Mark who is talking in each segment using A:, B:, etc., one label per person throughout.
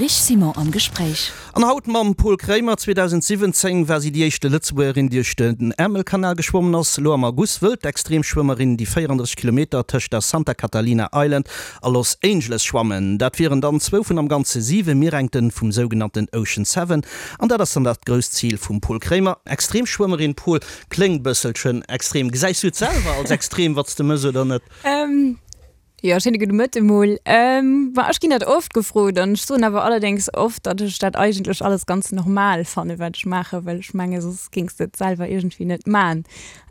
A: Rich Simon am Gespréich.
B: An haut mam Pol Kréimer. 2017 war si déi éischte Lëtzebuergerin, déi duerch den Äermelkanal geschwommen ass. Elo am August wëll d'Extremschwëmmerin déi 34 Kilometer tëscht der Santa Catalina Island a Los Angeles schwammen. Dat wieren dann zwou vun am Ganze siwe Mierengten vum sougenannten Ocean Seven. An dat ass dann dat grousst Zil vum Pol Kréimer. Extremschwëmmerin Pol, kléngt bësselchen extrem. Gesäis du et selwer als extrem, wat s de mëss oder net?
C: Jo, schéine gudde Mëtte mol. Ma ech ginn dat oft gefrot an ech soen awer allerdéngs oft, datt ech dat eigentlech alles ganz normal fanne wat ech maachen, well ech menge soss géings de et selwer iergendwéi net man.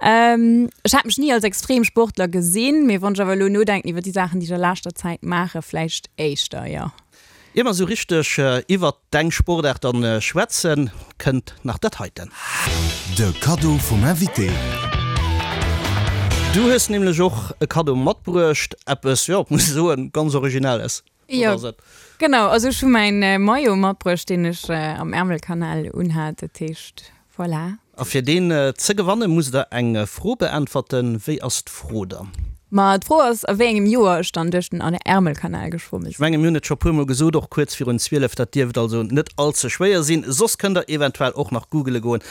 C: Ech hat mech ni als Extremsportler gesinn, mee wann ech awer elo nodenken iwwer déi Saachen, déi ech a leschter Zäit maachen, vläicht éischter, jo.
B: Ier mer esou richteg iwwert deng Sportaart dann schwätzen, kënnt nach dat heiten.
D: De Kaddo vum Invité.
B: Du hues nämlech och e Kaddo matbruecht, eppes, jo, muss ech soen, ganz Originelles.
C: Wat ass et? Jo, genau, also ech hu mäin Maillot matbruecht, deen ech am Ärmelkanal unhat, dat heescht, Voilà.
B: A fir deen ze gewannen, musst der eng Fro beäntwerten. Wéi ass d'Fro dann?
C: Ma d'Fro ass, a wéi engem Joer ech dann duerch den Ärmelkanal geschwomme
B: sinn. Ech mengen, mir hunn et scho puermol gesot, och kuerz virun 12, dat dierft also net all ze schwéier sinn. Soss kënnt der eventuell och nach googele goen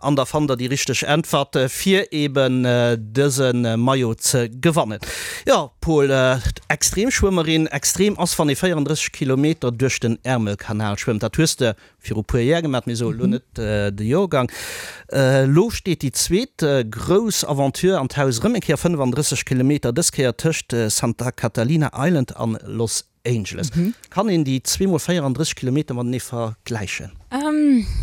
B: an da fannt der déi richteg Äntwert, fir eben dëse Maillot ze gewannen. Jo, Paul, Extremschwëmmerin, extrem ass, wann ee 34 Kilometer duerch den Ärmelkanal schwëmmt. Dat hues de viru puer Jär gemat, mir soe lo net de Jorgang. Elo steet déi zweet grouss Aventure an d'Haus, erëm eng Kéier 35 Kilometer, dës Kéier tëscht Santa Catalina Island an Los Angeles. Kann een déi zweemol 34 Kilometer matenee vergläichen?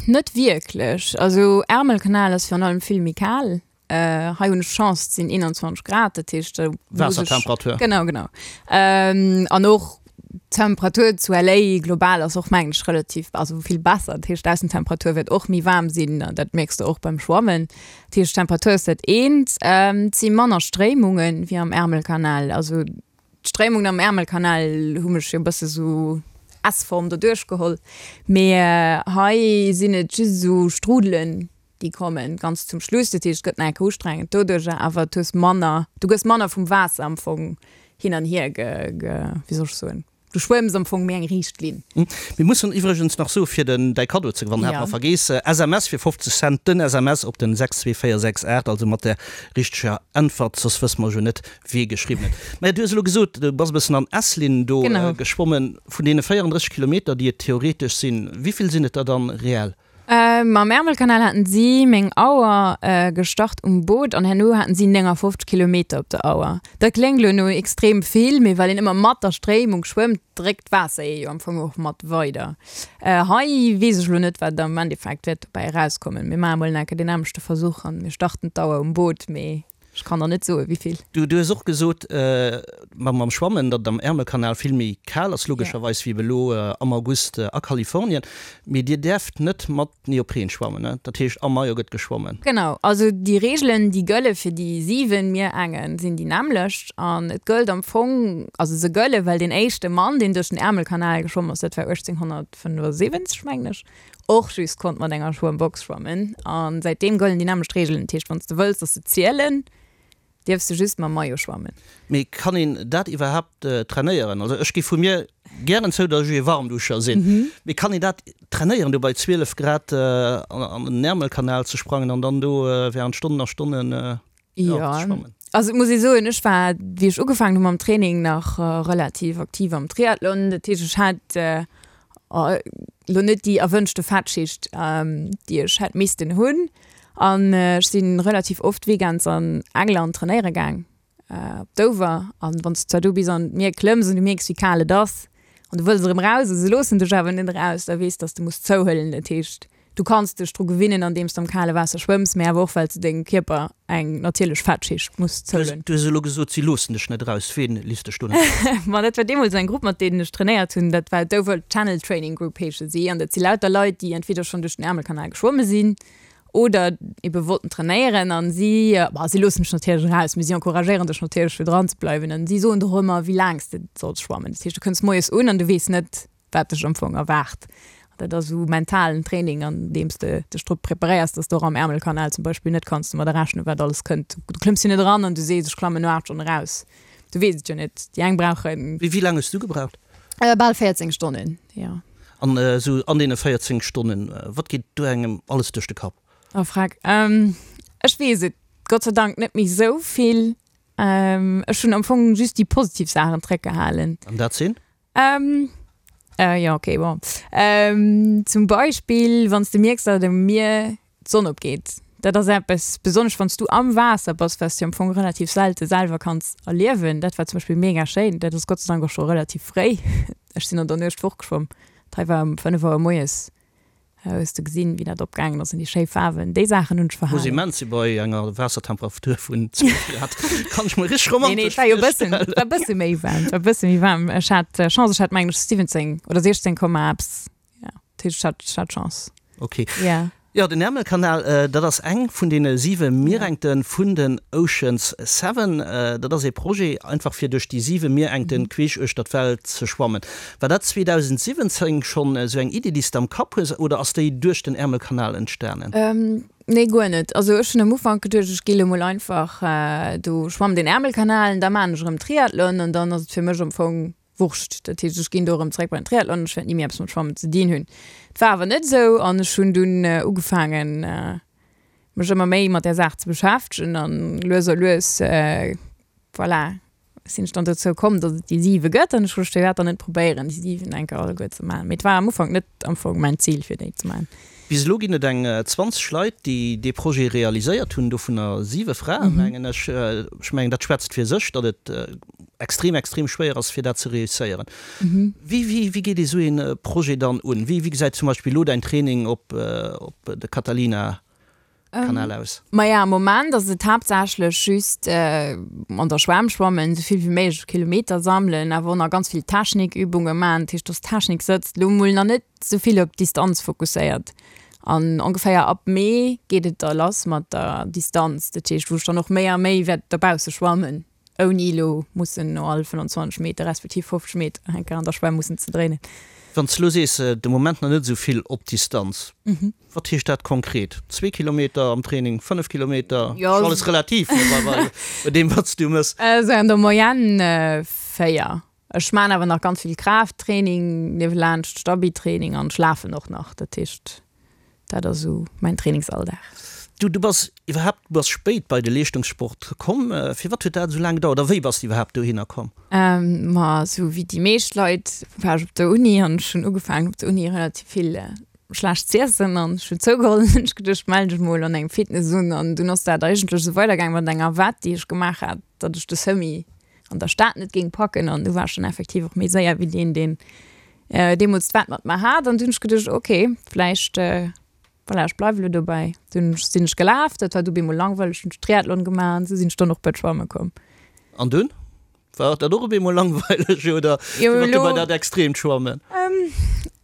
C: Net wierklech. Also Ärmelkanal ass virun allem vill méi kal. Hei hunn ech Chance, et sinn 21 Grad, dat heescht do muss ech.
B: Waassertemperatur.
C: Genau, genau. An och d'Temperatur zu LA global ass och mengen ech relativ, also vill besser. Dat heescht d'Aussentemperatur wäert och méi waarm sinn an dat mierks de och beim Schwammen. Dat heescht d'Temperatur ass dat eent. Et si manner Stréimungen wéi am Ärmelkanal. Also d'Stréimungen am Ärmelkanal hu mech jo e bësse sou S-Form doduerch geholl, mee hei sinn et just esou Strudelen, déi kommen ganz zum Schluss, dat heescht et gëtt nach eng Kéier ustrengend doduercher, awer du hues manner, du gëss manner vum Waasser am Fong hin an hier ge, ge, wéi soll ech soen, du schwëmms am Fong méi eng riicht Linn.
B: Mir mussen iwwregens nach soe fir den däi Kaddo ze gewannen, hat mer vergeess, SMS fir 50 Cent, den SMS op den 62468, also mat der richteger Äntwert, soss wësse mer jo net wee geschriwwen huet. Maja du hues elo gesot, du bass e bëssen an S-Linn do geschwommen. Vun deene 34 Kilometer déi et theoretesch sinn, wéivill sinn et der dann reell?
C: Mam Ärmelkanal haten si meng Auer gestart um Boot an herno haten si 59 Kilometer op der Auer. Dat kléngt elo no extrem vill, mee well een ëmmer mat der Stréimung schwëmmt, dréckt d'Waasser ee jo am Fong och mat weider. Hei weess ech elo net, wat am Endeffekt wäert dobäi erauskommen. Mir maache mol nach eng Kéier deen nämmlechte Versuch an mir starten d'Auer um Boot, mee Ech kann der net soen, wéivill.
B: Du hues och gesot, mam Schwammen, datt et am Ärmelkanal vill méi kal ass, logescherweis, wéi elo am August a Kalifornien. Mee Dir däerft net mat Neopren schwammen, ne? Dat heescht, am Maillot gëtt geschwommen?
C: Genau. Also déi Reegelen, déi gëlle fir déi 7 Mierengen, sinn déi nämmlecht. An et gëllt am Fong, also se gëlle well deen éischte Mann, deen duerch den Ärmelkanal geschwomm ass, dat war 1875, mengen ech, och just konnt mat enger Schwëmmbox schwammen an säitdeem gëllen déi nämmlecht Reegelen. Dat heescht, wann s de wëlls, dass se zielen, dierfs de just mam Maillot schwammen.
B: Mee kann een dat iwwerhaapt trainéieren? Also ech gi vu mir gären zou, dass ech ee Warmduscher sinn, mee kann een dat trainéieren, do bei 12 Grad an den Ärmelkanal ze sprangen an dann do während Stonnen a Stonnen
C: Jo, also et muss ee soen, ech war, wéi ech ugefaangen hu mam Training, nach relativ aktiv am Triathlon. Dat heescht, ech hat elo net déi erwënschte Fettschicht, déi ech hätt missten hunn. An ech si relativ oft weekends an England trainéiere gaang, op Dover. An wann s de zwar do bis an d'Mier klëmms an du mierks, wéi kal et ass, an du wëlls erëm eraus a se loossen dech awer net eraus, da weess, datt s de muss zouhuelen. Dat heescht, Du kanns dech dru gewinnen andeems de am kale Waasser schwëmms, mee awer och well s de dengem Kierper eng natierlech Fettschicht muss zouhuelen.
B: Du hues elo gesot, si loossen dech net eraus. Ween lisst dech do net eraus?
C: Ma dat war deemools eng Grupp, mat deenen ech trainéiert hunn. Dat war d'Dover Channel Training Group heesche si. An dat si lauter Leit, déi entweder schonn duerch den Äermelkanal geschwomme sinn oder ebe wollten trainéieren. An si, bah, si loossen dech natierlech eraus, mee si encouragéieren dech natierlech fir dran ze bleiwen. An si soen der och ëmmer, wéi laang s de solls schwammen. Dat heescht, du kënns moies un an du weess net, wat dech am Fong erwaart. Dat ass esou mentalen Training, an deem s de dech drop preparéiers, dass de och am Ärmelkanal zum Beispill net kanns domadder rechnen, wat alles kënnt. Du klëmms jo net eran an du sees, ech klammen no 8 Stonnen eraus. Du weess et jo net. Déi eng brauchen.
B: Wéi laang hues du gebraucht?
C: Bal 14 Stonnen, jo.
B: An esou an deene 14 Stonnen, wat geet do engem alles duerch de Kapp?
C: Oh freck, ech weess et Gott sei Dank net méi esou vill. Ech hunn am Fong just déi positiv Saachen zréckgehalen.
B: An dat sinn?
C: Jo, okay, bon. Zum Beispill, wann s de mierks, datt um Mier d'Sonn opgeet. Dat ass eppes, besonnesch wann s du am Waasser bass, wat s du am Fong relativ selte selwer kanns erliewen. Dat war zum Beispill mega schéin. Dat ass Gott sei Dank och scho relativ fréi. Ech sinn an der Nuecht fortgeschwomm. D'Hei war um 5 Auer moies. Hues de gesinn, wéi dat opgaangen ass an déi schéi Faarwen. Déi Saachen hunn ech
B: Muss
C: verhalen.
B: immens si bei enger Waassertemperatur vun 12 Grad. Kann ech mer richteg
C: Nee, nee,
B: romantesch
C: et war jo e bëssen,
B: virstellen.
C: et war e bësse méi waarm, et war e bësse méi waarm. Ech hat Chance, ech hat mengen ech 17 oder 16 Komma eppes. Ja, dat heescht, ech hat, ech hat Chance.
B: Ok.
C: Ja.
B: Jo, den Ärmelkanal, dat ass eng vun deene siwe Mierengte vun den Oceans Seven. Dat ass ee Projet einfach fir duerch déi siwe Mierengte queesch uechter d'Welt ze schwammen. War dat 2017 schonn esou eng Iddi, déi s de am Kapp hues, oder ass déi duerch den Ärmelkanal entstanen?
C: Nee, guer net. Also ech hunn am Ufank geduecht, ech gi lo mol einfach do schwammen den Ärmelkanal an da maan ech erëm Triathlon an dann ass et fir mech am Fong Wurscht. Dat heescht, ech ginn do erëm zeréck bei den Triathlon, ech wäert ni méi eppes mat Schwammen ze dinn hunn. Et war awer net esou an ech hunn dunn ugefaangen, mech ëmmer méi mat där Saach ze beschäftegen an lues a lues, voilà, sinn ech dann dozou komm, datt et déi siwe gëtt an ech hu gesot, firwat dann net probéieren, déi siwen eng Kéier alleguer ze maachen. Mee et war am Ufank net am Fong mäin Zil, fir déi ze maachen.
B: Bis elo ginn et eng 20 Leit, déi dee Projet realiséiert hunn, dovunner siwe Fraen, mengen ech. Ech mengen, dat schwätzt fir sech, datt et extrem, extrem schwéier ass, fir dat ze reusséieren. Wéi, wéi, wéi geet ee sou ee Projet dann un? Wéi, wéi gesäit zum Beispill elo däin Training op, op de Catalina Kanal aus?
C: Maja, am Moment ass et haaptsächlech just an der Schwämm schwammen, esou vill wéi méiglech Kilometer sammelen, awer och nach ganz vill Technikübunge maachen. Dat heescht, dass d'Technik sëtzt. Elo mol nach net esou vill op d'Distanz fokusséiert. An ongeféier ab Mee geet et da lass mat der Distanz, dat heescht, wou ech dann och méi a méi wäert dobausse schwammen. Ouni elo mussen no all 25 Meter respektiv 50 Meter eng Kéier an der Schwämm mussen ze dréinen.
B: Wann s de elo sees, de Moment nach net esou vill op Distanz, wat heescht dat konkret? Zwee Kilometer am Training, 5 Kilometer?
C: Jo.
B: Ass alles relativ, ne, bei deem, wat s du mëss.
C: Esou an der Moyenne 4. Ech maan awer nach ganz vill Kraafttraining niewelaanscht, Stabi-Training an ech lafen och nach. Dat heescht, dat ass esou mäin Trainingsalldag.
B: Du, du bass iwwerhaapt, du bass spéit bei de Leeschtungssport komm. Firwat huet dat esou laang gedauert a wéi bass de iwwerhaapt dohinner komm?
C: Ma esou wéi déi meescht Leit war ech op der Uni an ech hunn ugefaangen op der Uni relativ vill schlecht z'iessen an ech hunn zougeholl an hunn ech geduecht, mell dech mol an engem Fitness un an dunn ass dat eigentlech esou weidergaangen mat enger Wett déi ech gemaach hat, datt ech de Semi an der Stad net géing packen an du war ech dann effektiv och méi séier wéi deen, deen deemools d'Wett mat mer hat an du hunn ech geduecht, ok, vläicht, voilà, ech bleiwe lo dobäi. Dunn sinn ech gelaf, dat war du bemol langweileg, hunn ech Triathlon gemaach an esou sinn ech dann och bei d'Schwamme komm.
B: An dunn? War dat och op eemol langweileg oder
C: Jo,
B: firwat du bei
C: elo.
B: dat extreemt Schwammen?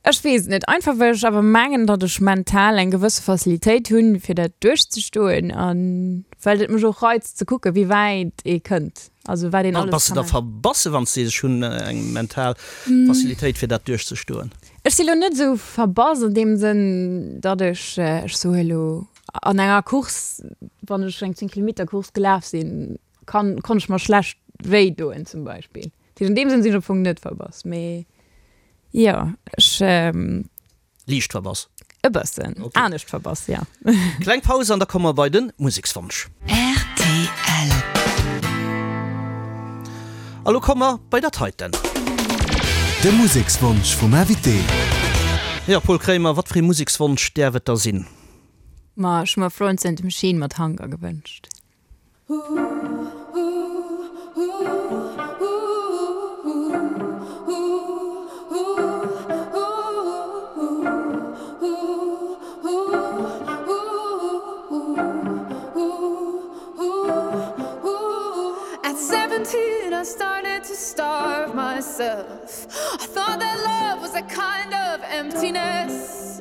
C: Ech weess et net. Einfach well ech awer mengen, datt ech mental eng gewësse Facilitéit hunn, fir dat duerchzestoen a well et mech och reizt ze kucken, wéi wäit ee kënnt, also wat een alles
B: Bass de
C: ka
B: da
C: maachen.
B: verbasse wann s de sees, ech hunn eng mental Facilitéit fir dat duerchzestoen?
C: Ech si lo net esou verbass an deem Sënn, datt ech, ech soe lo, an enger Course, wann ech eng 10 Kilometer Course gelaf sinn, kann, konnt ech mer schlecht wéi doen zum Beispill. Dat heescht, an deem Sënn sinn ech am Fong net verbass, mee jo, ech.
B: Liicht verbass.
C: E bëssen anescht verbass, jo.
B: Kleng Paus an da komme mer bei de Musekswonsch.
A: Rtl.
B: A lo komme mer bei dat heiten.
D: De Musekswonsch vum Invité.
B: Jo, Paul Kraemer, wat fir ee Musekswonsch däerf et da sinn?
C: Ma ech hu mer Florence and the Machine mat Hunger gewënscht.
E: At 17 I started to starve myself I thought that love was a kind of emptiness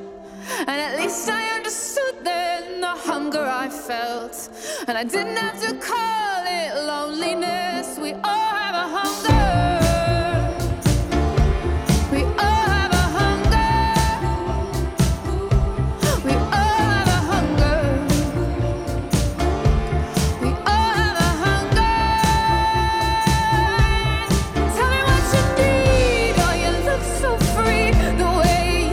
E: And at least I understood then the hunger I felt And I didn't have to call it loneliness We all have a hunger We all have a hunger We all have a hunger We all have a hunger Tell me what you need Oh you look so free the way you.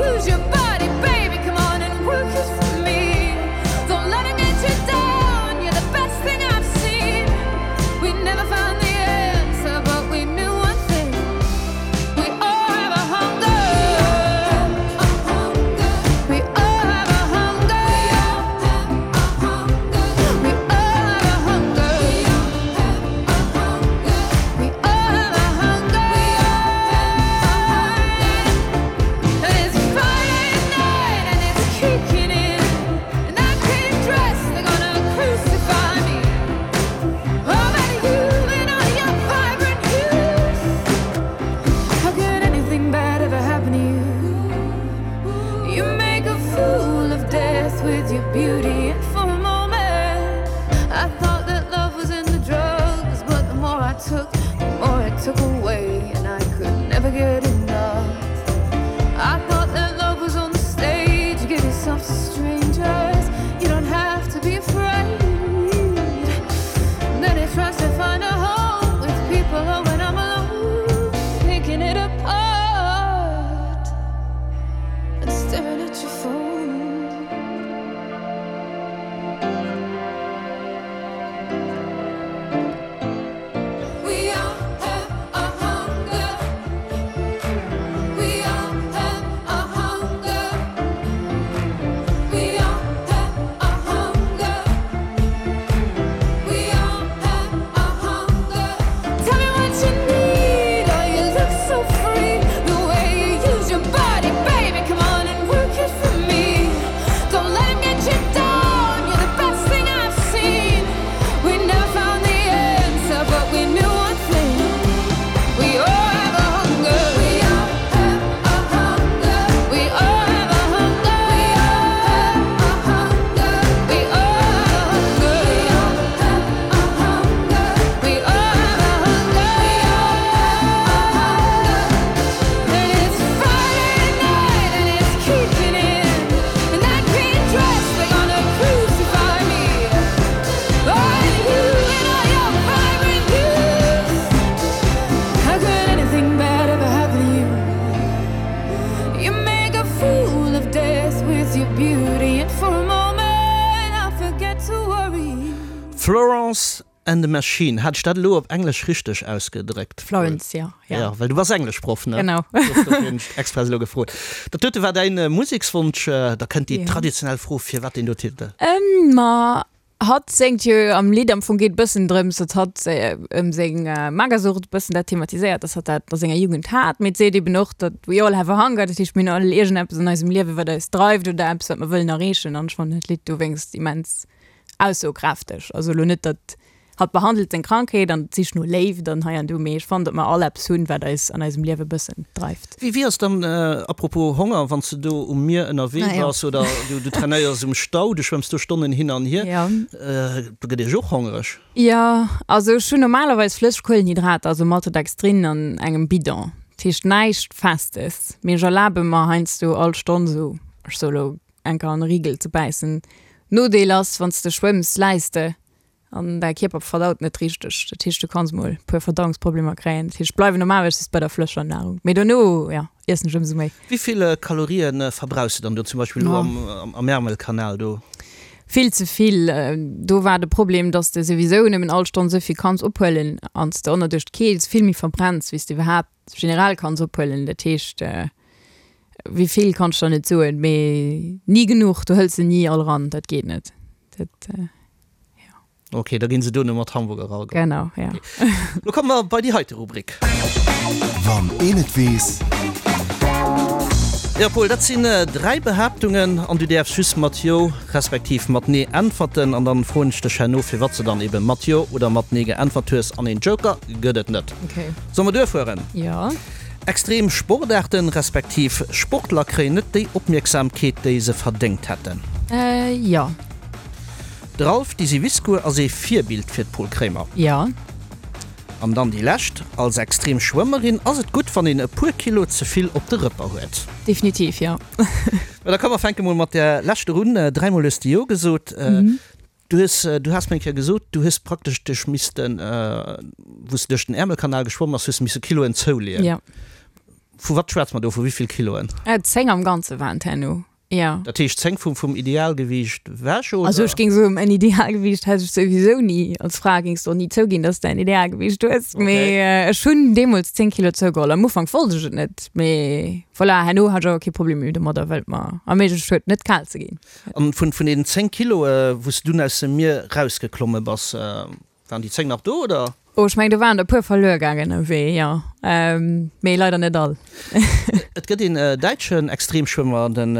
B: Florence and the Machine, hat ech dat elo op Englesch richteg ausgedréckt?
C: Florence, jo.
B: Ja, well du bass Engleschproff, ne?
C: Genau.
B: Dofir hunn ech express elo gefrot. Dat dote war däin Musekswonsch. Da kënnt déi traditionell Fro, Firwat deen do Titel?
C: Ma hatt séngt jo am Lidd, am Fong geet et bëssen drëms, datt hatt ëm seng Magersucht bëssen dat thematiséiert, datt hatt dat a senger Jugend hat. Mee et seet eben och, datt we all have a hunger, dat heescht mir hunn all iergendeppes an eisem Liewe wat eis dreift oder eppes wat mer wëllen erreechen. An ech fannen dat Lidd dowéinst immens aussokräfteg. Also elo net, datt hatt behandelt seng Krankheet an d'Sich no Léift an hei an do, mee ech fannen, datt mer all eppes hunn, wat eis an eisem Liewe bëssen dreift.
B: Wéi wéi ass dann, apropos Honger, wann s de do um Mier ënnerwee bass oder du du trainéiers um Stau, du schwëmms do Stonnen hin an hier, do gëtt ee jo och hongereg?
C: Jo, also ech hunn normalerweis flësseg Kuelenhydrater, also Maltodextrin an engem Bidon, dat heescht näischt Festes, mee ech erlabe mer heiansdo all Stonn esou, ech soe lo eng Kéier an e Rigel ze bäissen. Nodeel ass, wann s de schwëmms, läis de an däi Kierper verdaut net richteg. Dat heescht, du kanns mol e puer Verdauungsproblemer kréien. Dat heescht, ech bleiwen normalerweis just bei der flëscher Nahrung, mee dono, jo, iessen ech ëmsou méi.
B: Wéi vill Kalorië verbrauchs de dann do zum Beispill elo am Ärmelkanal do?
C: Vill ze vill. Do war de Problem, dass de souwisou nëmmen all Stonn esou vill kanns ophuelen an s de ënner duerch d'Keels vill méi verbrenns, wéi s de iwwerhaapt generell kanns ophuelen. Dat heescht, Wéi vill kann ech der net soen, mee ni genuch. Du hëls se ni all ran, dat geet net. Dat, jo.
B: Ok, da ginn se duerno mat Hamburger erageholl.
C: Genau, jo.
B: Lo komme mer bei déi heite Rubrik.
D: Wann een et weess.
B: Jo Paul, dat sinn 3 Behaaptungen an du däerfs just mat Jo respektiv mat Nee äntwerten an dann froen ech dech herno firwat s de dann eben mat Jo oder mat Nee geäntwert hues an een Joker gëtt et net.
C: Ok.
B: Solle mer duerfueren?
C: Jo.
B: Extrem Sportaarten, respektiv Sportler kréien net déi Opmierksamkeet, déi se verdéngt hätten.
C: Jo.
B: De Ralph Disiviscu ass ee Virbild fir d'Pol Krémer.
C: Jo.
B: An dann déi lescht, Als extrem Schwëmmerin ass et gutt, wann een e puer Kilo ze vill op de Rëpper huet.
C: Definitiv, jo.
B: Mä da komm mer fänke mol mat där leschter un. Dräimol hues de Jo gesot. Du hues, du has mir eng Kéier gesot, du hues praktesch dech missten, wou s de duerch den Äermelkanal geschwomm bass, hues de misse Kiloen zouleeën.
C: Jo.
B: Vu wat schwätze mer do? Vu wéi vill Kiloen?
C: 10 am Ganze waren et herno, jo.
B: Dat heescht 10 vum, vum Idealgewiicht ewech, oder?
C: Also ech géing soen, en Idealgewiicht hätt ech souwisou ni. Als Fra géings de och ni zouginn, dass de en Idealgewiicht hues. Mee ech hunn deemools 10 Kilo zougeholl. Am Ufank wollt ech et net, mee voilà, herno hat ech awer kee Problem méi domadder, well et mer erméiglecht huet, net kal ze ginn.
B: An vun vun den 10 Kiloe wou s de dunn aus dem Mier rausgeklomme bass, waren déi 10 nach do, oder?
C: Oh, ech mengen do waren der e puer verluer gaangen ënnerwee, jo. Mee leider net all.
B: Et gëtt een däitschen Extremschwëmmer, den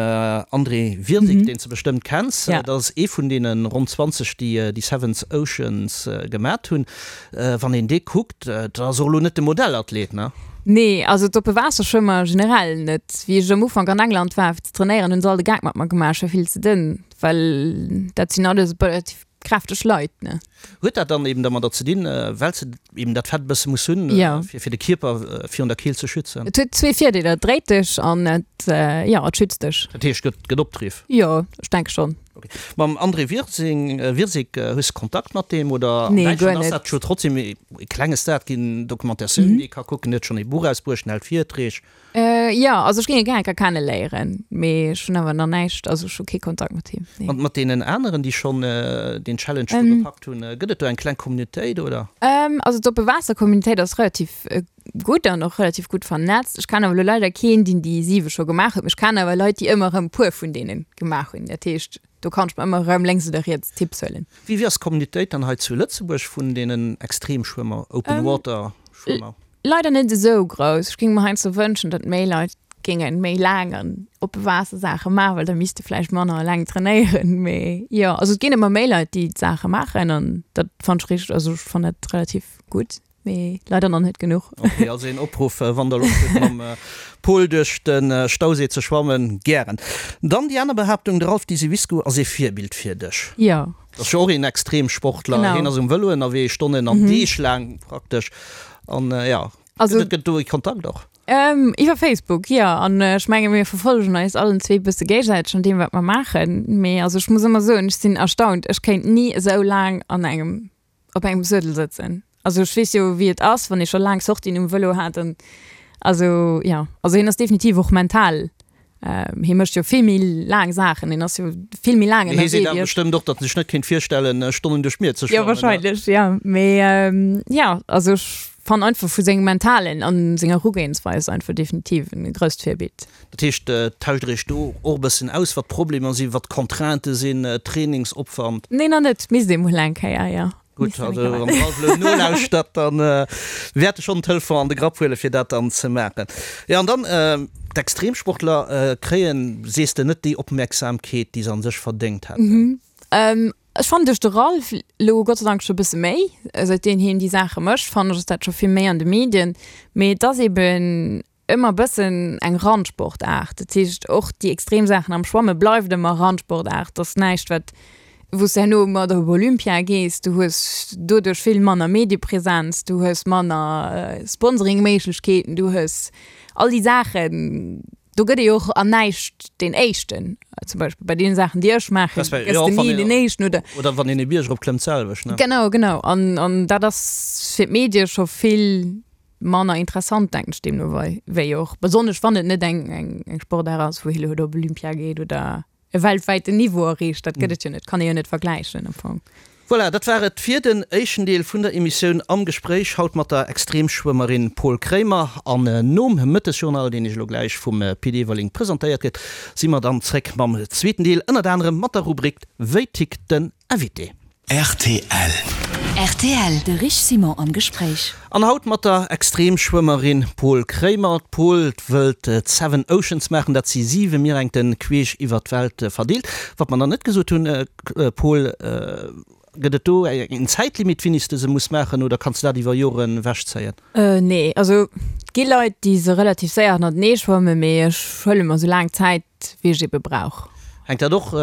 B: André Wirsig, deen s de bestëmmt kenns. Dat ass ee vun deene ronn 20, déi déi Seven Oceans gemat hunn. Wann een dee kuckt, dat ass och elo net de Modellathlet, ne?
C: Nee, also d'oppe Waasserschwëmmer generell net. Wéi ech am Ufank an England war fir ze trainéieren, hunn se all de Gag mat mer gemaach, ech war vill ze dënn, well dat sinn alles relativ kräfteg Leit, ne?
B: Huet dat dann eben dermadder ze dinn, well se eben dat Fett e bësse muss hunn, fir de Kierper virun der Keelt ze schützen?
C: Et huet zwee Virdeeler, et dréit dech an et, jo, et schützt dech.
B: Dat heescht, et gëtt Opdriff?
C: Jo, ech denke schonn.
B: Okay. Mam André Wirsing, Wirsig, hues de Kontakt mat deem oder?
C: Nee, guer net.
B: Ass dat scho trotzdem e klenge Star, et ginn Documentatiounen, déi ee ka kucken, huet schonn ee Buch erausbruecht, en hält Virträg.
C: Jo, also ech géing e gär eng Kéier kenne léieren, mee ech hunn awer nach näischt, also ech hu kee Kontakt mat him,
B: nee. Mat deenen aneren, déi schonn deen Challenge do gepackt hunn, gëtt et do eng kleng Communautéit oder?
C: Also d'oppe Waasser-Communautéit ass relativ gutt an och relativ gutt vernetzt. Ech kennen awer elo leider keen, deen déi siwe scho gemaach huet, mee ech kennen awer Leit, déi ëmmer erëm puer vun deene gemaach hunn. Dat heescht, do kann ech mer ëmmer erëm lénks oder riets Tipps huelen.
B: Wéi wéi ass d'Communautéit dann hei zu Lëtzebuerg vun deenen Extremschwëmmer, Open Water Schwëmmer?
C: Leider net esou grouss. Ech géing mer heiansdo wënschen, datt méi Leit géinge méi laang an oppe Waasser Saache maachen, well da misst de vläicht manner eleng trainéieren. Mee jo, also et ginn ëmmer méi Leit, déi d'Saache maachen an dat fannen ech richteg, also ech fannen dat relativ gutt. Mee leider nach net genuch.
B: Ok, also een Opruff, wann der Loscht hutt mam Pol duerch de Stauséi ze schwammen, gären. Dann déi aner Behaaptung, de Ralph Diseviscourt ass ee Virbild fir dech.
C: Jo.
B: Dat ass jo och een Extremsportler,
C: Genau.
B: hien ass um Vëlo ënnerwee, Stonnen an Deeg laang praktesch. An jo,
C: Also.
B: gëtt et do ee Kontakt och?
C: Iwwer Facebook, jo. An ech menge mir verfollegen eis allen zwee bësse géigesäiteg an deem wat mer maachen. Mee also ech muss ëmmer soen, ech sinn erstaunt, ech kéint ni esou laang an engem op engem Suedel sëtzen. Also ech weess jo wéi et ass, wann ee scho laang Sortien um Vëlo hat an also jo, also hien ass definitiv och mental. Hie mécht jo vill méi laang Saachen, hien ass jo vill méi laang
B: Mee hie
C: ënnerwee
B: seet awer
C: wéi ech.
B: bestëmmt och, datt en sech net kéint virstellen, Stonnen duerch d'Mier ze
C: Jo,
B: schwammen, ne?
C: wahrscheinlech, jo. Mee jo, also ech fannen einfach vu sengem Mentalen an senger Erugehensweis einfach definitiv en grousst Virbild.
B: Dat heescht, tauscht der iech do och e bëssen aus, wat d'Problemer sinn, wat d'Contraintë sinn, Trainingsopwand?
C: Nee, nach net. Misst ee mol eng Kéier, jo.
B: Gutt, also wann de Ralph elo nolauschtert, dann wäert e schonn den Telefon an de Grapp huelen, fir dat dann ze maachen. Jo, an dann, d'Extremsportler kréien, sees de, net déi Opmerksamkeet, déi se an sech verdéngt hätten.
C: Ech fannen duerch de Ralph elo Gott sei Dank scho e bësse méi. Säitdem hien déi Saache mécht, fannen ech, ass dat scho vill méi an de Medien. Mee et ass eben ëmmer e bëssen eng Randsportaart. Dat heescht, och déi extrem Saachen am Schwamme bleift ëmmer Randsportaart. Dat ass näischt, wat, wou s de herno mat op Olympia gees. Du hues doduerch vill manner Mediepresenz, du hues manner Sponsoringméiglechkeeten, du hues all déi Saachen. Do gëtt ee jo och an näischt deen Éischten. Zum Beispill bei deene Saachen, déi ech maachen, gëss de ni deen Éischten,
B: oder? Oder wann een e Bierg eropklëmmt, d'selwecht, ne?
C: Genau, genau. An, an dat ass fir d'Medie scho vill manner interessant, denken ech deemno wei, wéi och, besonnesch wann et net eng, eng, eng Sportaart ass, wou hie elo op Olympia geet oder e weltwäiten Niveau erreecht. Dat gëtt et jo net, kann ee jo net vergläichen am Fong.
B: Voilà, dat war et fir den éischten Deel vun der Emissioun Am Gespréich, haut mat der Extremschwëmmerin Paul Kremer. An nom Mëttesjournal, deen Iech elo gläich vum Pit Everling presentéiert gëtt, si mer dann zréck mam zweeten Deel, ënnert anerem mat der Rubrik Wéi tickt den Invité?
D: Rtl.
E: Rtl, De Rich Simon am Gespréich.
B: An haut mat der Extremschwëmmerin Paul Kremer. D'Paul wëllt d'Seven Oceans maachen, dat si siwe Mierengten queesch iwwer d'Welt verdeelt. Wat mer nach net gesot hunn, Paul, gëtt et do eng Zäitlimit, wéini s de se muss maachen, oder kanns de dat iwwer Joren ewechzéien?
C: Nee, also et gi Leit, déi se relativ séier hannertenee schwammen, mee ech huele mer esou laang Zäit, wéi ech ebe brauch.
B: Hänkt dat och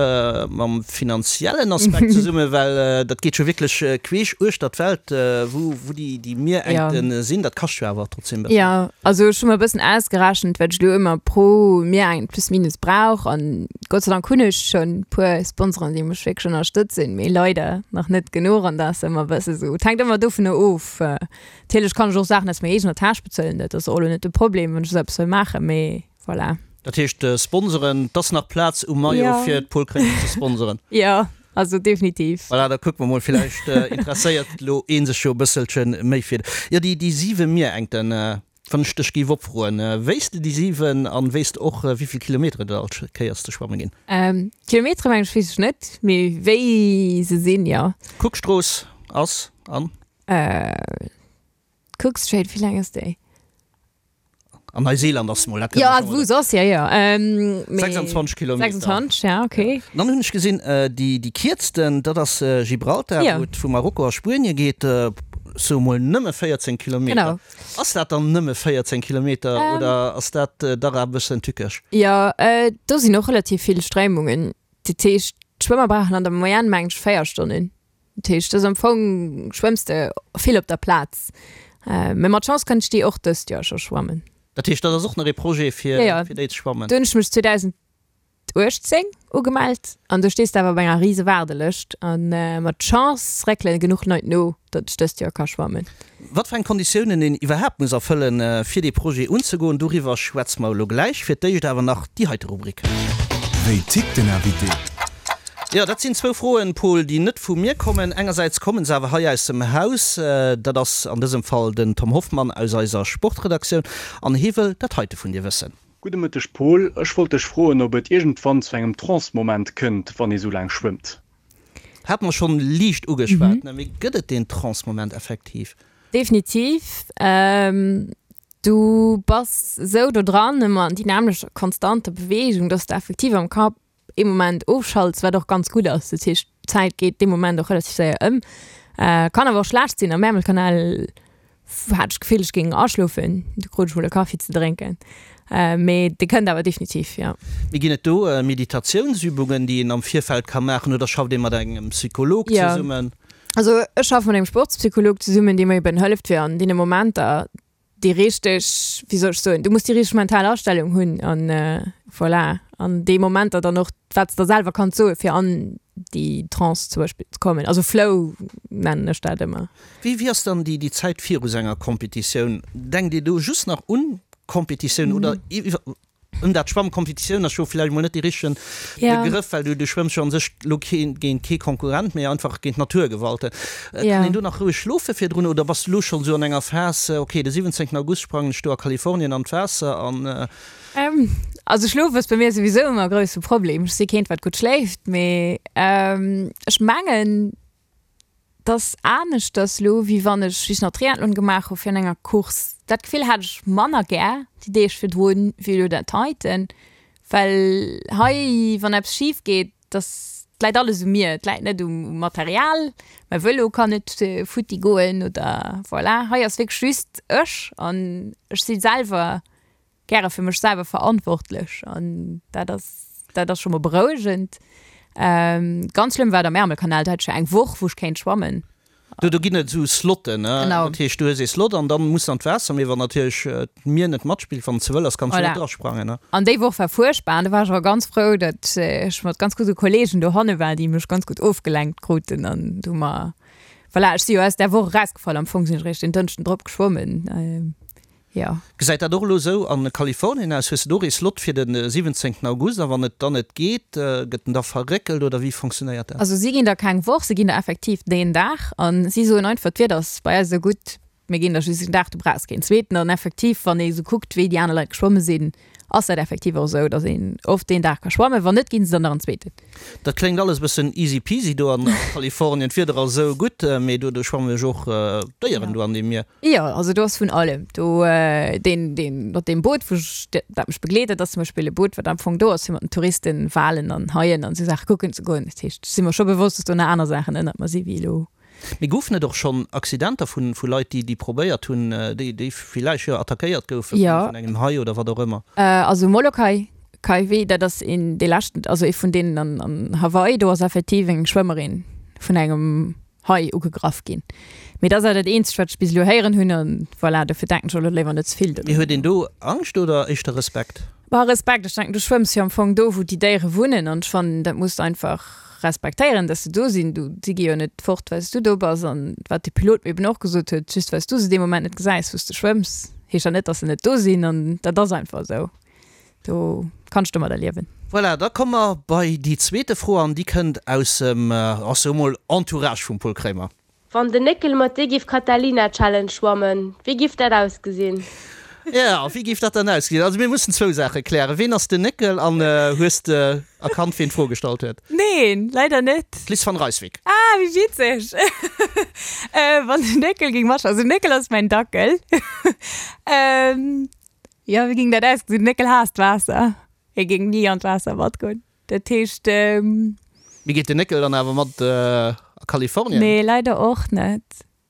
B: mam finanziellen Aspekt zesummen? Well dat geet jo wierklech queesch uechter d'Welt, wou déi Mierengten sinn. Dat kascht jo awer trotzdem e bëssen.
C: Jo, also ech hu mer e bëssen ausgerechent, wat ech elo ëmmer pro Mierengt plus minus brauch. An Gott sei Dank hunn ech schonn e puer Sponsoren, déi mech wierklech ënnerstëtzen, mee leider nach net genuch. An da ass ëmmer e bësse sou, et hänkt ëmmer dovunner of. Natierlech kann ech och Saachen aus menger eegener Täsch bezuelen, dat ass och elo net de Problem, wann ech esou eppes wëll maachen, mee voilà.
B: Dat heescht sponsoren, 't ass nach Plaz um Maillot fir d'Paul Kréimer ze sponsoren.
C: Jo, also definitiv.
B: Voilà, da kucke mer mol, villäicht interesséiert elo ee sech jo e bësselche méi fir. Jo, déi déi siwe Mierengten, wann ech dech géif opfroen, wéisst de déi siwen an wéisst de och wéivill Kilometer et all Kéiers ze schwamme ginn?
C: Kilometere meng ech weess ech net, mee wéi se sinn, jo.
B: D'Cookstrooss ass an?
C: D'Cook Strait, wéi laang ass déi?
B: An Neuseeland ass mol, dat
C: kënne mer schonn mol. Jo, soss, jo, jo. Mee
B: 26 Kilometer.
C: 26, ja, okay.
B: An dann hunn ech gesinn, déi, déi kierzten, dat ass Gibraltar, wou et vu Marokko a Spuenie geet, sou mol nëmme 14 Kilometer.
C: Genau.
B: Ass dat dann nëmme 14 Kilometer oder ass dat dach e bëssen tückesch?
C: Jo, do sinn och relativ vill Stréimungen. Dat heescht, d'Schwëmmer brauchen an der Moyenne, mengen ech, 4 Stonnen. Dat heescht, dat ass am Fong, schwëmms de vill op der Plaz. Mee mat Chance kënnt ech déi och dëst Joer scho schwammen.
B: Dat heescht, dat ass och nach ee Projet fir déi ze schwammen?
C: Do hunn ech mech 2018 ugemellt an do stees de awer op enger rise Waardelëscht. A mat Chance réckele genuch Leit no, datt ech dëst Joer ka schwammen.
B: Wat fir eng Konditiounen een iwwerhaapt muss erfëllen, fir dee Projet unzegoen, doriwwer schwätze mer elo gläich. Fir d'éischt awer nach déi heite Rubrik.
D: Wéi tickt den Invité?
B: Jo, dat sinn zwou Froen, Paul, déi net vu mir kommen. Engersäits kommen se awer hei aus dem Haus. Dat ass an dësem Fall den Tom Hoffmann aus eiser Sportredaktioun an hie wëll dat heite vun dir wëssen.
A: Gudde Mëtteg Paul, ech wollt dech froen ob et iergendwann zu engem Trance-Moment kënnt, wann ee sou laang schwëmmt?
B: Hate mer schonn liicht ugeschwat, ne? Mee gëtt et deen Trance-Moment effektiv?
C: Definitiv. Du bass esou do dran, ëmmer an déi nämmlecht konstanter Beweegung, dass de effektiv am Kapp ee Moment ofschalts, wat och ganz gutt ass. Dat heescht, d'Zäit geet dee Moment och relativ séier ëm. Kann awer och schlecht sinn. Am Ärmelkanal hat ech d'Gefill, ech géing aschlofen. Du krut ech mol e Kaffi ze drénken. Mee dee kënnt awer definitiv, jo.
B: Mee ginn et do Meditatiounsübungen, déi een am Virfeld ka maachen oder schafft ee mat engem Psycholog zesummen?
C: Jo, also ech schaffe mat engem Sportspsycholog zesummen, dee mer eben hëlleft fir an deene Momenter déi richteg, wéi soll ech soen, du muss déi richteg mental Astellung hunn an voilà, an déi Momenter dann och, wat s de der selwer kanns soen, fir an déi Trance zum Beispill ze kommen. Also Flow nennen ech dat ëmmer.
B: Wéi, wéi ass dann déi, déi Zäit viru sou enger Competitioun? Denkt Dir do just nach un d'Competitioun oder iwwer. Ëm dat Schwammen, Kompetitioun ass jo villäicht mol net dee richtegen Begrëff, well du du schwëmms jo an sech lo keen géint kee Konkurrent, mee einfach géint d'Naturgewalten. Kann een do nach roueg schlofe virdrun oder bass du lo schonn esou an enger Phas, ok de 17 August sprangen ech do a Kalifornien an d'Waasser an.
C: Also schlofe ass bei mir souwisou ëmmer e grousse Problem. Ech si keent wat gutt schléift, mee ech mengen, 't ass aneschters lo, wéi wann ech, wéi ech nach Triathlon gemaach hu virun enger Course. Dat Gefill hat ech manner gär déi Deeg virdrun, wéi elo dat heiten, well hei, wann eppes schif geet, dass, 't läit alles u mir, 't läit net um Material, mäi Vëlo kann net futti goen oder voilà. Hei ass wierklech just ech an ech si selwer gäre fir mech selwer verantwortlech an dat ass dat ass scho mol berouegend. Ganz schlëmm war et am Ärmelkanal, do hat ech jo eng Woch wou ech kéint schwammen.
B: Do do ginn et esou Slotten, ne?
C: Genau.
B: Dat heescht du hues ee Slot an dann muss an d'Waasser, mee wann natierlech d'Mier net matspillt, wann et ze wëll ass, kanns du
C: Voilà.
B: net drasprangen, ne?
C: An déi Woch war fuerchtbar an do war ech awer ganz frou, datt ech mat ganz gudde Kollegen dohanne war, déi mech ganz gutt ofgelenkt kruten an do hu mer, voilà, ech si jo aus där Woch erausgefall, am Fong sinn ech eréischt den Dënschden drop geschwommen. Jo.
B: Gesäit dat och elo esou a Kalifornien aus? Hues de do och ee Slot fir de 17 August? A wann et dann net geet, gëtt en da verréckelt oder wéi fonctionnéiert dat?
C: Also si ginn der keng Woch, si ginn der effektiv deen Dag a si soen einfach, d'Wieder ass bei eis esou gutt, mir ginn der just een Dag, du brauchs keen zweeten. An effektiv, wann ee esou kuckt, wéi déi aner Leit geschwomme sinn, ass dat effektiv och esou, datt een oft deen Dag ka schwammen. Wann net, ginn se der nach en zweeten.
B: Dat kléngt alles e bëssen easy peasy do an Kalifornien, d'Wieder ass esou gutt, mee do schwamme jo och Déieren do an deem Mier.
C: Jo, also do ass vun allem do. Deen, deen mat deem Boot, wou ech, dat mech begleet huet, ass zum Beispill e Boot, wat am Fong do ass, fir mat den Touristen Walen an Haien an esou Saache kucken ze goen. Dat heescht, ech si mer scho bewosst, dass do nach aner Saachen ënnert mer si wéi elo.
B: Mee goufen et och schonn Accidenter vu vu Leit, déi, déi probéiert hunn, déi, déi villäicht, jo, attackéiert goufe vun engem Hai oder wat och ëmmer?
C: Also Molokai, Kaiwi, dat ass een dee leschten, also ee vun deenen an, an Hawaii, do ass effektiv eng Schwëmmerin vun engem Hai ugegraff ginn. Mee dat ass awer dat eenzegt, wat ech bis elo héieren hunn. An voilà, dofir denken ech och elo léiwer net ze vill
B: Mee huet een do Angscht oder éischter Respekt?
C: Bah, Respekt. Ech denken, du schwëmms jo am Fong do, wou déi Déiere wunnen. An ech fannen, dat muss de einfach respektéieren, dass se do sinn. Du, si gi jo net fort, well s du do bass. An wat de Pilot mir eben och gesot huet, just well s du se dee Moment net gesäis, wou s de schwëmms, heescht dat net, dass se net do sinn. An dat ass einfach esou. Do kanns domadder liewen.
B: Voilà, da komme mer bei déi zweete Fro an déi kënnt aus dem, ach sou mol, Entourage vum Paul Kremer.
F: Wann den Néckel mat dir giff Catalina Challenge schwammen, wéi giff dat ausgesinn?
B: Jo, wéi giff dat dann ausgesinn? Also mir mussen zwou Saache klären, Ween ass den Néckel an hues de erkannt ween d'Fro gestallt huet?
C: Neen, leider net.
B: D'Liz van Rijswijk.
C: Ah, wéi witzeg! Wann den Néckel géing matschwammen, also den Néckel ass mäin Dackel. Jo, wéi géing dat ausgesinn? Den Néckel haasst d'Waasser. Hie géing ni an d'Waasser matgoen. Dat heescht.
B: Mee geet den Néckel dann awer mat a Kalifornien?
C: Nee, leider och net.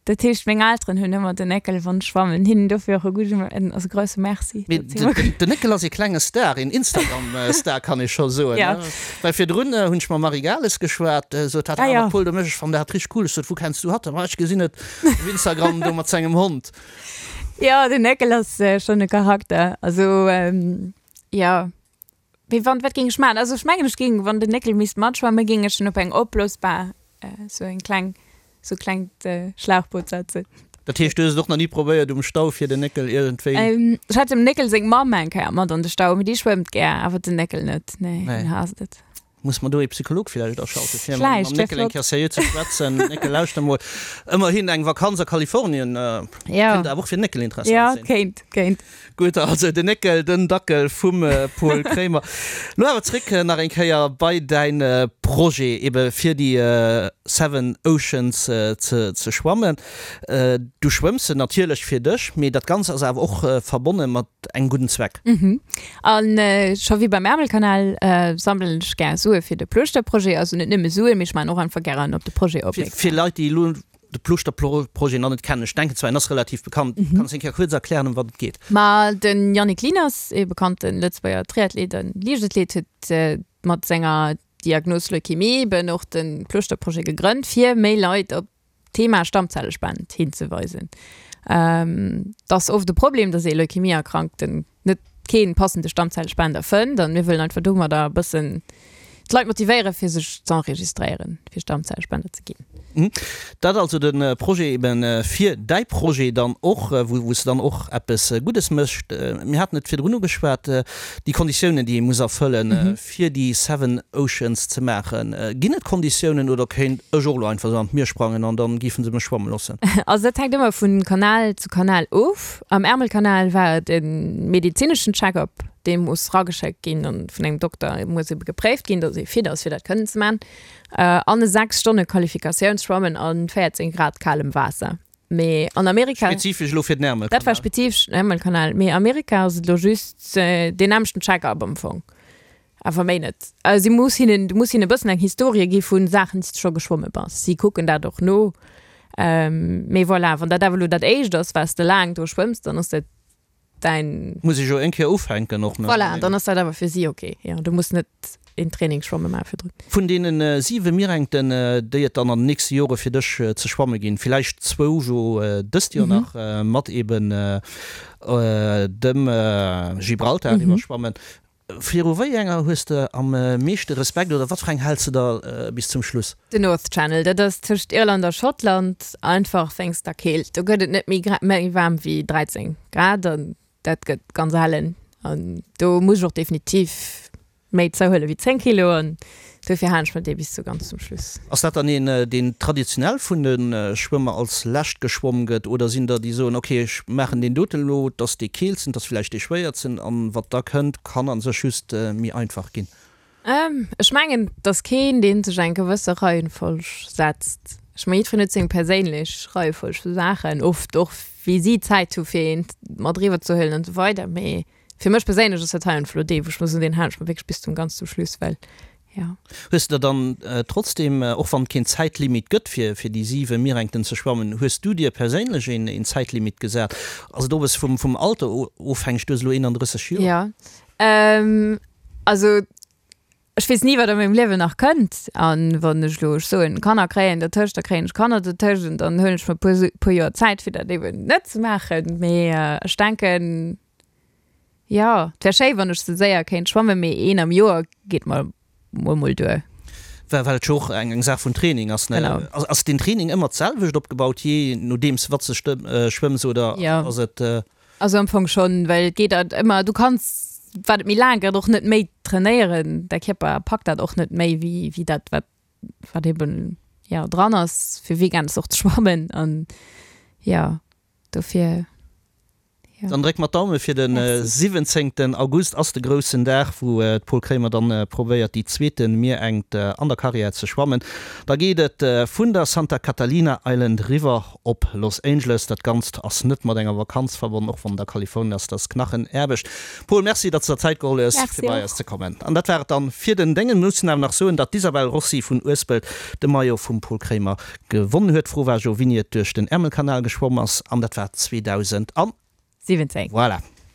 C: Dat heescht, meng Elteren hunn ëmmer den Néckel wann ech schwammen. Hinnen dofir och e gudde, en, also grousse Merci.
B: Mee den Néckel ass ee klenge Star, een Instagram-Star kann ee scho soen, ne? Well virdrun hunn ech mam Marie Gales geschwat, sot hat, ah, mat Paul, do méch ech fannen dat richteg cool. Ech sot, wou kenns du hatt? Ma ech gesinn et op Instagram do mat sengem Hond.
C: Jo, den Néckel ass schonn e Charakter. Also, jo. Mee wann, wat géing ech maachen? Also ech mengen, ech géing, wann den Néckel misst matschwammen, géing ech en op eng opblosbar, sou eng kleng, sou klengt Schlauchboot setzen.
B: Dat heescht, du hues et och nach ni probéiert um Stau fir den Néckel iergendwéi.
C: Ech hat dem Néckel seng Mamm eng Kéier mat an de Stau, mee déi schwëmmt gär, awer den Néckel net. Nee, deen haasst et.
B: Muss mer do ee Psycholog villäicht aschalten, fir mam Néckel eng Kéier seriö ze schwätzen. Néckel, lauschter mol, ëmmerhin eng Vakanz a Kalifornien kéint awer och fir den Néckel interessant
C: sinn. Jo, kéint, kéint.
B: Gutt, also den Néckel, den Dackel vum Paul Kremer. Lo awer zréck nach eng Kéier bei däin Projet, ebe fir déi Seven Oceans ze schwammen. Du schwëmms se natierlech fir dech, mee dat Ganzt ass awer och verbonne mat engem gudden Zweck.
C: Mhm. An scho wéi beim Ärmelkanal sammelen ech gär Sue fir de Plooschter-Projet. Also net nëmme Suen, mee ech maachen och einfach gären op de Projet opmierksam.
B: Fir Leit, déi elo de Plooschter-Projet nach net kennen, ech denken zwar, en ass relativ bekannt, kanns de eng Kéier kuerz erklären, ëm wat et geet?
C: Ma de Yannick Lieners, ee bekannte Lëtzebuerger Triathlet a Liichtathlet, huet mat senger Diagnos Leukemie eben och de Plooschter-Projet gegrënnt, fir méi Leit op Thema Stammzellespend hinzeweisen. Et ass oft e Problem, dass ee Leukemie-Erkrankten net kee passende Stammzellespender fënnt an mir wëllen einfach domadder e bëssen. d'Leit motivéieren, fir sech z'enregistréieren, fir Stammzellspender ze ginn.
B: Dat also de Projet eben fir däi Projet dann och, wou s de dann och eppes Guddes méchs. Mir haten et virdrun ugeschwat, déi Konditiounen, déi ee muss erfëllen, fir déi Seven Oceans ze maachen. Ginn et Konditiounen oder kéint ech och elo einfach esou an d'Mier sprangen an dann géife se mech schwamme loossen?
C: Also dat hänkt ëmmer vu Kanal zu Kanal of. Am Ärmelkanal war et e medezineschen Check-up, dee muss rageschéckt ginn an vun engem Dokter muss ebe gepréift ginn, datt ee fit ass fir dat kënnen ze maachen. An e 6 Stonne Qualifikatiounsschwammen a 14 Grad kalem Waasser. Mee an Amerika.
B: Spezifesch elo fir den Ärmelkanal?
C: Dat war spezifesch den Ärmelkanal. Mee Amerika ass et elo just deen nämmlechten Check-up am Fong. Awer méi net. Si muss hinnen, du muss hinnen e bëssen eng Historie gi vu Saachen, déi s de scho geschwomme bass. Si kucken dat och no. Mee voilà, wann dat awer elo dat éischt ass, wat s de laang do schwëmms, dann ass dat däin.
B: Muss ech jo eng Kéier ufänken och, ne?
C: Voilà, dann ass dat awer fir si ok. Jo, du muss net een Trainingsschwamme maache virdrun.
B: Vun deene siwe Mierengten, déi et dann an den nächste Jore fir dech ze schwamme ginn, villäicht zwou jo dëst Joer nach mat eben dem Gibraltar iwwerschwammen, viru wéi enger hues de am meeschte Respekt oder wat fir eng häls de der bis zum Schluss?
C: Den North Channel, dat ass tëscht Irland a Schottland, einfach wéinst der Keelt. Do gëtt et net méi méi waarm wéi 13 Grad an dat gëtt ganz ellen an do muss ech och definitiv méi zouhuele wéi 10 Kilo an dofir halen ech mer dee bis zu ganz zum Schluss.
B: Ass dat dann een, deen traditionell vun de Schwëmmer als lescht geschwomm gëtt oder sinn der, déi soen, ok ech maachen deen doten elo, et ass dee keelsten, et ass villäicht dee schwéiertsen an wat da kënnt, kann a sech just méi einfach ginn?
C: Ech mengen, et ass keen, dee sech eng gewësse Reihenfolg setzt. Ech mengen, jiddwereen huet seng perséinlech Reiefolg vu Saachen, oft och wéi si Zäit hu fir eent mat eriwwer ze huelen an esou weider, mee Fir mech perséinlech ass dat hei einfach elo dee, wou ech muss soen, deen halen ech mer wierklech bis zum ganz zum Schluss, well jo.
B: Hues de der dann trotzdem, och wann et keen Zäitlimit gëtt fir fir déi 7 Mierengten ze schwammen, hues du dir perséinlech een een Zäitlimit gesat? Ass et och e bësse vum vum Alter ofhängeg? Du hues elo 31 Joer.
C: Jo, also Ech weess ni, wat a mengem Liewen nach kënnt. An wann ech elo, ech soen, Kanner kréien dertëscht, da kréien ech Kanner dertëscht an dann huelen ech mer e puer, puer Joer Zäit, fir dat eben net ze maachen. Mee ech denken, jo, et wär schéi, wann ech sou séier kéint schwammen, mee een am Joer geet mer mol mol duer.
B: Well, well et jo och eng, eng Saach vun Training ass, ne?
C: Genau.
B: Ass, ass den Training ëmmer d'selwecht opgebaut, jee nodeems wat s de schwëmms oder ass et?
C: Also am Fong schonn, well et geet halt ëmmer, du kanns, wat et méi laang gëtt, och net méi trainéieren. Däi Kierper packt dat och net méi wéi, wéi dat, wat, wat eben, jo, dran ass, fir weekends och ze schwammen an jo, dofir,
B: jo. Dann dréck mer d'Daume fir de 17 August ass de groussen Dag, wou d'Paul Kremer dann probéiert déi zweete Mierengt an der Karriär ze schwammen. Da geet et vun der Santa Catalina Island riwwer Op Los Angeles. Dat Ganzt ass net mat enger Vakanz verbonnen, och wann et a Kalifornien ass. Dat ass Knachenaarbecht. Paul, Merci, datt s de der Zäit geholl hues, fir bei eis ze kommen. An dat war et dann fir den Déngen. Mir mussen awer nach soen, datt d'Isabel Rossi vun Uespelt de Maillot vum Paul Kremer gewonnen huet. D'Fro war jo, wéini et duerch den Ärmelkanal geschwomm ass, an dat war 2017.
C: Voilà.